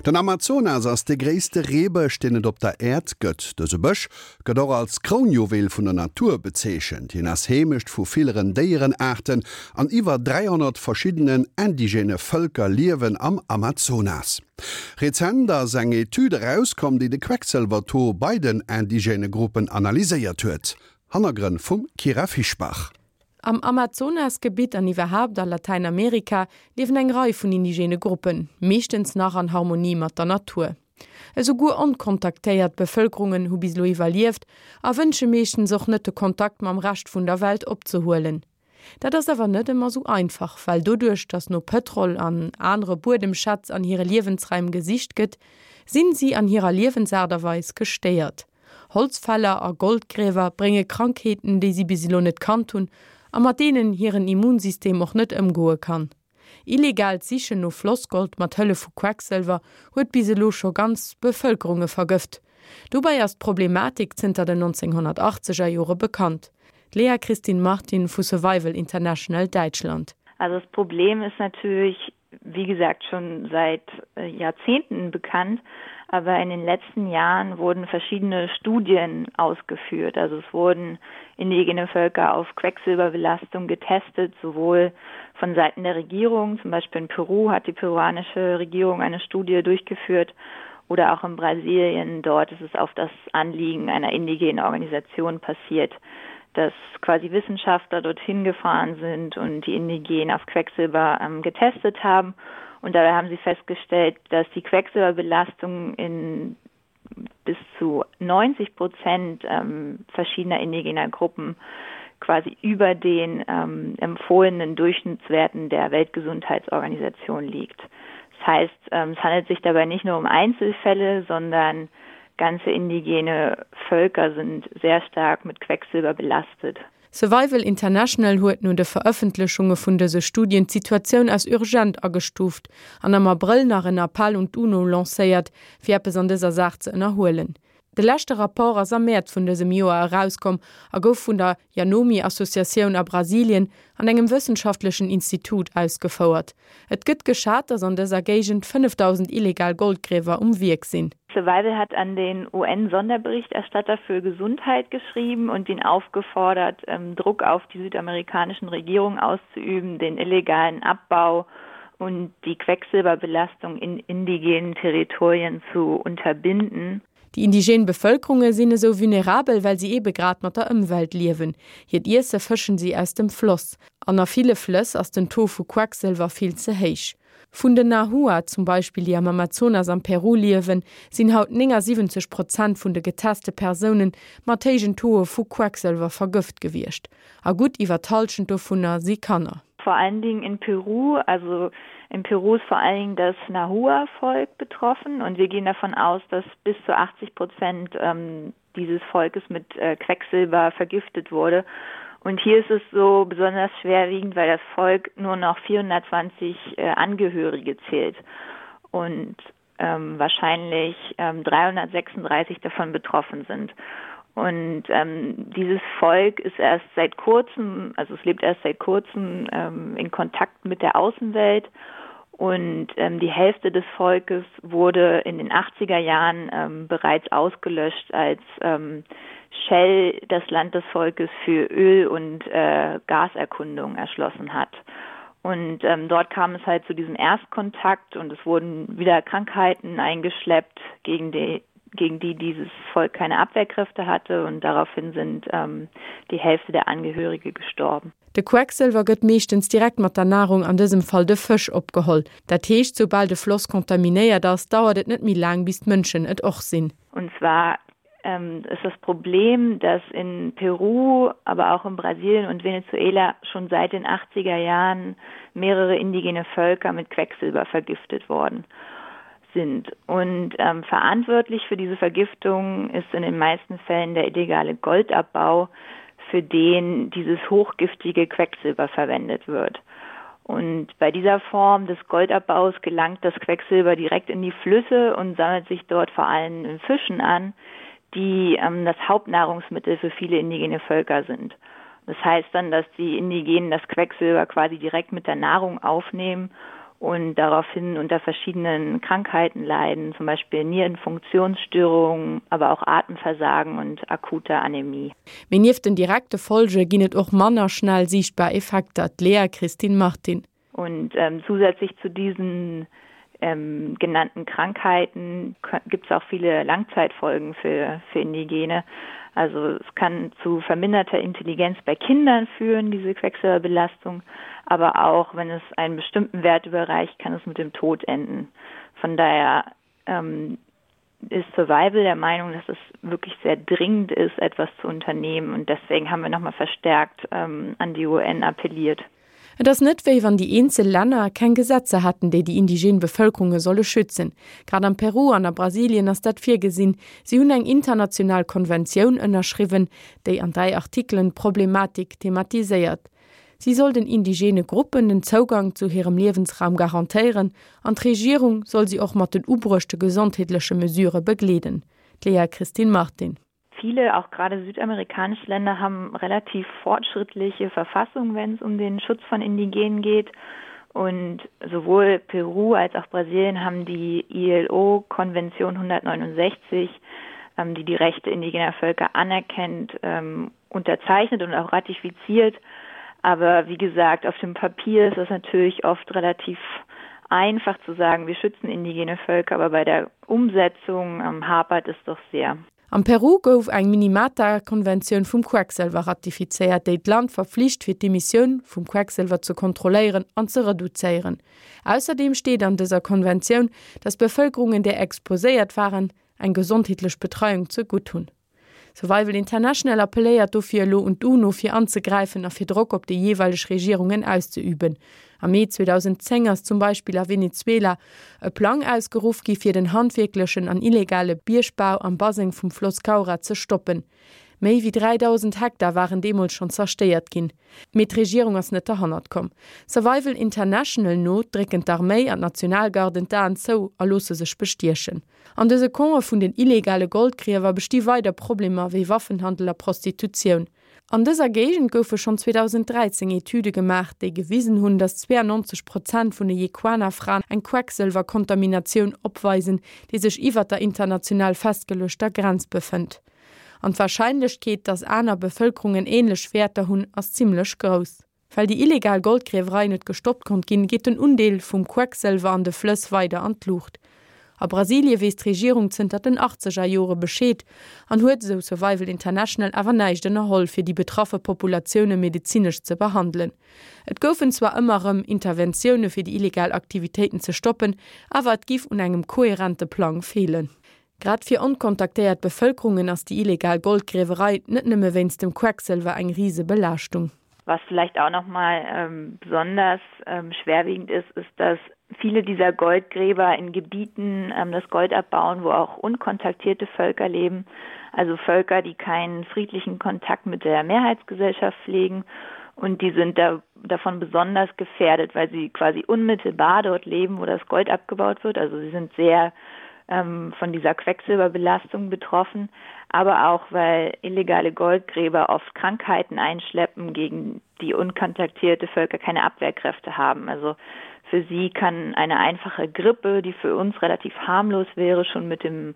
Den Amazonas ass de gréisste Reebësch, deen et op der Äerd gëtt. Dëse Bësch gëtt och als Krounjuwel vun der Natur bezeechent. Hien ass Heemecht vu villeren Déierenaarten an iwwer 300 verschiddenen indigène Vëlker liewen am Amazonas. Rezent ass eng Etüd erauskomm, déi de Quecksëlwer-Taux bei den indigène Gruppen analyséiert huet. Hannergrënn vum Kyra Fischbach. Am Amazonasgebitt an iwwerhaapt a Latäinamerika liewen eng Rei vun indigene Gruppen, meeschtens nach an Harmonie mat der Natur. Esouguer onkontaktéiert Bevëlkerungen hu bis elo iwwerlieft a wënsche meeschtens och net de Kontakt mam Rescht vun der Welt opzehuelen. Dat ass awer net ëmmer sou einfach, well doduerch datt no Pëtrol an anere Buedemschätz an hire Liewensraim gesicht gëtt, sinn si an hirer Liewensaart a Weis gestéiert. Holzfäller a Goldgriewer brénge Krankheeten, déi si bis elo net kannt hunn a mat deenen hiren Immunsystem och net ëmgoe kann. Illegaalt Sichen no Flossgold mat Hëllef vu Quecksëlwer huet bis elo scho ganz Bevëlkerunge vergëft. Dobäi ass d'Problematik zënter den 1980 er Jore bekannt. D'Lea Christine Martin vu Survival International Däitschland. Also das Problem ist natürlich wie gesagt schon seit äh, Jahrzehnten bekannt, aber in den letzten Jahren wurden verschiedene Studien ausgeführt. Also es wurden indigene Völker auf Quecksilberbelastung getestet, sowohl von Seiten der Regierung, zum Beispiel in Peru hat die peruanische Regierung eine Studie durchgeführt oder auch in Brasilien. Dort ist es auf das Anliegen einer indigenen Organisation passiert, dass quasi Wissenschaftler dorthin gefahren sind und die Indigenen auf Quecksilber ähm, getestet haben. Und dabei haben sie festgestellt, dass die Quecksilberbelastung in bis zu 90 Prozent ähm, verschiedener indigener Gruppen quasi über den ähm, empfohlenen Durchschnittswerten der Weltgesundheitsorganisation liegt. Das heißt, ähm, es handelt sich dabei nicht nur um Einzelfälle, sondern ganze indigene Völker sind sehr stark mit Quecksilber belastet. Survival International huet no de Verëffentlechunge vun dëse Studien d'Situatioun als urgent agestuuft an am Abrëll nach en Appell un d'UNO lancéiert, fir eppes an dëser Saach ze ënnerhuelen. De leschte Rapport ass am Mäerz vun dësem Joer erauskomm a gouf vun der Yanomi-Associatioun a Brasilien an engem wëssenschaftlechen Institut ausgefouert. Et gëtt geschat, datt an dëser Géigend 5.000 illegal Goldgriewer um Wierk sinn. Survival hat an den UN-Sonderberichterstatter für Gesundheit geschrieben und ihn aufgefordert, ähm, Druck auf die südamerikanischen Regierungen auszuüben, den illegalen Abbau und die Quecksilberbelastung in indigenen Territorien zu unterbinden. Déi indigen Bevëlkerunge sinn esou vulnerabel, well si eebe grad mat der Ëmwelt liewen. Hiert Iesse fëschen si aus dem Floss. An a ville Flëss ass den Taux vu Quecksëlwer vill ze héich. Vun den Nahua zum Beispill, déi am Amazonas am Peru liewen, sinn haut 79 Prozent vun de geteste Persoune mat héijen Tauxe vu Quecksëlwer vergëft gewiescht. A gutt iwwer d'Hallschent dovunner si Kanner. Vor allen Dingen in Peru, also in Peru ist vor allen Dingen das Nahua-Volk betroffen und wir gehen davon aus, dass bis zu 80 Prozent ähm, dieses Volkes mit äh, Quecksilber vergiftet wurde. Und hier ist es so besonders schwerwiegend, weil das Volk nur noch 420 äh, Angehörige zählt und ähm, wahrscheinlich ähm, 336 davon betroffen sind. Und ähm, dieses Volk ist erst seit kurzem, also es lebt erst seit kurzem ähm, in Kontakt mit der Außenwelt. Und ähm, die Hälfte des Volkes wurde in den 80er Jahren ähm, bereits ausgelöscht, als ähm, Shell das Land des Volkes für Öl- und äh, Gaserkundung erschlossen hat. Und ähm, dort kam es halt zu diesem Erstkontakt und es wurden wieder Krankheiten eingeschleppt, gegen die, gegen die dieses Volk keine Abwehrkräfte hatte und daraufhin sind ähm, die Hälfte der Angehörige gestorben. De Quecksëlwer gëtt meeschtens direkt mat der Nahrung, an dësem Fall de Fësch, opgeholl. Dat heescht, soubal de Floss kontaminéiert ass, dauert et net méi laang, bis d'Mënschen et och sinn. Und zwar ähm, ist das Problem, dass in Peru, aber auch in Brasilien und Venezuela schon seit den 80er Jahren mehrere indigene Völker mit Quecksilber vergiftet worden sind. Und ähm, verantwortlich für diese Vergiftung ist in den meisten Fällen der illegale Goldabbau, für den dieses hochgiftige Quecksilber verwendet wird. Und bei dieser Form des Goldabbaus gelangt das Quecksilber direkt in die Flüsse und sammelt sich dort vor allem in Fischen an, die ähm, das Hauptnahrungsmittel für viele indigene Völker sind. Das heißt dann, dass die Indigenen das Quecksilber quasi direkt mit der Nahrung aufnehmen. Und daraufhin unter verschiedenen Krankheiten leiden, zum Beispiel Nierenfunktionsstörungen, aber auch Atemversagen und akute Anämie. Mee nieft den direkte Folge ginn et och manner schnell siichtbar Effekter, d'Léa Christine Martin. Und ähm, zusätzlich zu diesen ähm, genannten Krankheiten gibt es auch viele Langzeitfolgen für, für Indigene. Also es kann zu verminderter Intelligenz bei Kindern führen, diese Quecksilberbelastung, aber auch wenn es einen bestimmten Wert überreicht, kann es mit dem Tod enden. Von daher ähm, ist Survival der Meinung, dass es wirklich sehr dringend ist, etwas zu unternehmen und deswegen haben wir noch mal verstärkt ähm, an die UN appelliert. Et ass net, wéi wann déi eenzel Länner keng Gesetzer hätten, déi déi indigen Bevëlkerunge solle schützen. Grad am Peru an a Brasilien ass dat virgesinn. Si hunn eng international Konventioun ënnerschriwwen, déi an 3 Artikelen d'Problematik thematiséiert. Si soll den indigene Gruppen den Zougang zu hirem Liewensraum garantéieren an d'Regierung soll si och mat den ubruechte gesondheetleche Mesure begleeden. D'Léa Christine Martin. Viele, auch gerade südamerikanische Länder haben relativ fortschrittliche Verfassungen, wenn es um den Schutz von Indigenen geht. Und sowohl Peru als auch Brasilien haben die ILO-Konvention 169, ähm, die die Rechte indigener Völker anerkennt, ähm, unterzeichnet und auch ratifiziert. Aber wie gesagt, auf dem Papier ist das natürlich oft relativ einfach zu sagen, wir schützen indigene Völker, aber bei der Umsetzung ähm, hapert es doch sehr. Am Peru gouf eng Minimata-Konventioun vum Quecksëlwer ratifizéiert, déi d'Land verflicht fir d'Emissioun vum Quecksëlwer ze kontrolléieren an ze reduzéieren. Ausserdeem steet an dëser Konventioun, datt Bevëlkerungen, déi exposéiert waren, eng gesondheetlech Betreiung ze gutt hunn. Survival International appelléiert dofir elo un d'UNO fir anzegräifen a fir Drock op déi jeeweileg Regierungen auszeüben. Am Mee 2010 ass zum Beispill a Venezuela e Plang ausgeruff gi fir den handwierklechen an illegale Biergbau am Baseng vum Floss Caura ze stoppen. Méi wéi 3.000 Hektar waren deemools schonn zerstéiert ginn. Mee d'Regierung ass net derhannert komm. Survival International no drécken d'Arméi an d'Nationalgarden d'Aen zou a loosse sech bestiechen. An dëse Campe vun den illegale Goldgriewer besti weider Problemer wéi Waffenhandel a Prostitutioun. An dëser Géigend goufe schonn 2013 Etüde gemaach, déi gewisen hunn, datt 92 Prozent vun de Yequana-Fraen eng Quecksëlwerkontaminatioun opweisen, déi sech iwwer der international festgeluechter Grenz befënnt. An d'Warscheinlechkeet, datt aner Bevëlkerungen änlech Wäerter hunn, ass zimmlech grouss. Well déi illegal Goldgriewerei net gestoppt konnt ginn, geet den Undeel vum Quecksëlwer an de Flëss weider an d'Luucht. A Brasilie weess d'Regierung zënter den achtzeger Jore Bescheed an huet, esou Survival International, awer näischt ënnerholl, fir déi betraffe Populatioune medezinesch ze behandelen. Et goufen zwar ëmmer erëm Interventioune fir déi illegal Aktivitéiten ze stoppen, awer et giff un engem koherente Plang feelen. Grad fir onkontaktéiert Bevëlkerungen ass déi illegal Goldgriewerei net nëmme wéinst dem Quecksëlwer eng Risebelaaschtung. Was vielleicht auch noch mal ähm, besonders ähm, schwerwiegend ist, ist, dass viele dieser Goldgräber in Gebieten ähm, das Gold abbauen, wo auch unkontaktierte Völker leben, also Völker, die keinen friedlichen Kontakt mit der Mehrheitsgesellschaft pflegen und die sind da davon besonders gefährdet, weil sie quasi unmittelbar dort leben, wo das Gold abgebaut wird. Also sie sind sehr ähm, von dieser Quecksilberbelastung betroffen, aber auch weil illegale Goldgräber oft Krankheiten einschleppen, gegen die unkontaktierte Völker keine Abwehrkräfte haben. Also für sie kann eine einfache Grippe, die für uns relativ harmlos wäre, schon mit dem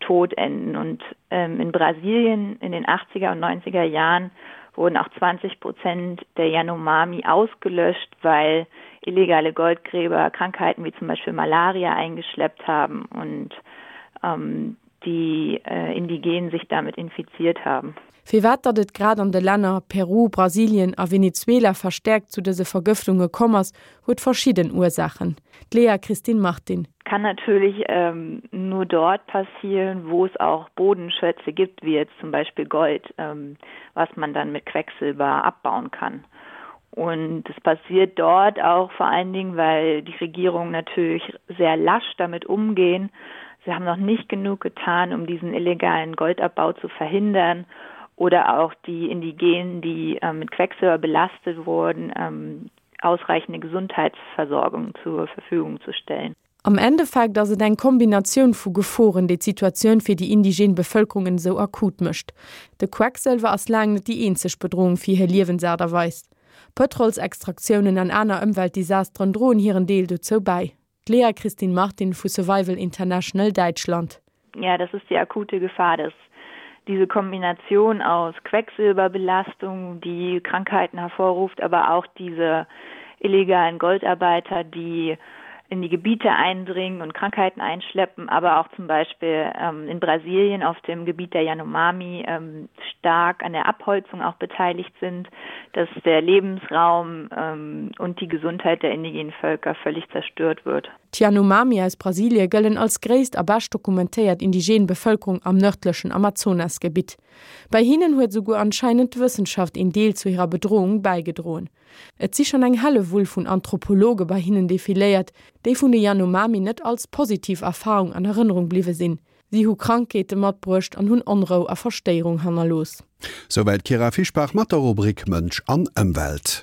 Tod enden. Und ähm, in Brasilien in den 80er und 90er Jahren wurden auch 20 Prozent der Yanomami ausgelöscht, weil illegale Goldgräber Krankheiten wie zum Beispiel Malaria eingeschleppt haben und ähm, die äh, Indigenen sich damit infiziert haben. Firwat datt et grad an de Länner Peru, Brasilien a Venezuela verstäerkt zu dëse Vergëftunge komm ass, huet verschidden Ursaachen. D'Léa Christine Martin. Kann natürlich ähm, nur dort passieren, wo es auch Bodenschätze gibt, wie jetzt zum Beispiel Gold, ähm, was man dann mit Quecksilber abbauen kann. Und es passiert dort auch vor allen Dingen, weil die Regierung natürlich sehr lasch damit umgehen. Sie haben noch nicht genug getan, um diesen illegalen Goldabbau zu verhindern oder auch die Indigenen, die äh, mit Quecksilber belastet wurden, ähm, ausreichende Gesundheitsversorgung zur Verfügung zu stellen. Am Endeffekt ass et eng Kombinatioun vu Geforen, déi d'Situatioun fir déi indigen Bevëlkerungen esou akut mécht. De Quecksëlwer ass laang net déi eenzeg Bedroung fir hir Liewensaart a Weis. Pëtrolsextraktiounen an aner Ëmweltdesasteren droen hiren Deel dozou bäi. D'Lea Christine Martin vu Survival International Däitschland. Ja, das ist die akute Gefahr, dass diese Kombination aus Quecksilberbelastung, die Krankheiten hervorruft, aber auch diese illegalen Goldarbeiter, die in die Gebiete eindringen und Krankheiten einschleppen, aber auch zum Beispiel ähm, in Brasilien auf dem Gebiet der Yanomami ähm, stark an der Abholzung auch beteiligt sind, dass der Lebensraum ähm, und die Gesundheit der indigenen Völker völlig zerstört wird. D'Yanomami aus Brasilie gëllen als gréisst a bescht dokumentéiert indigen Bevëlkerung am nërdlechen Amazonasgebitt. Bei hinnen huet esouguer anscheinend d'Wëssenschaft een Deel zu hirer Bedrohung bäigedroen. Et si schonn eng Hellewull vun Anthropologe bei hinnen defiléiert, déi vun de Yanomami net als positiv Erfarung an Erënnerung bliwwe sinn. Si hu Krankheete matbruecht an hunn Onrou a Verstéierung hannerlooss. Souwäit d'Kyra Fischbach mat der Rubrik Mënsch an Ëmwelt.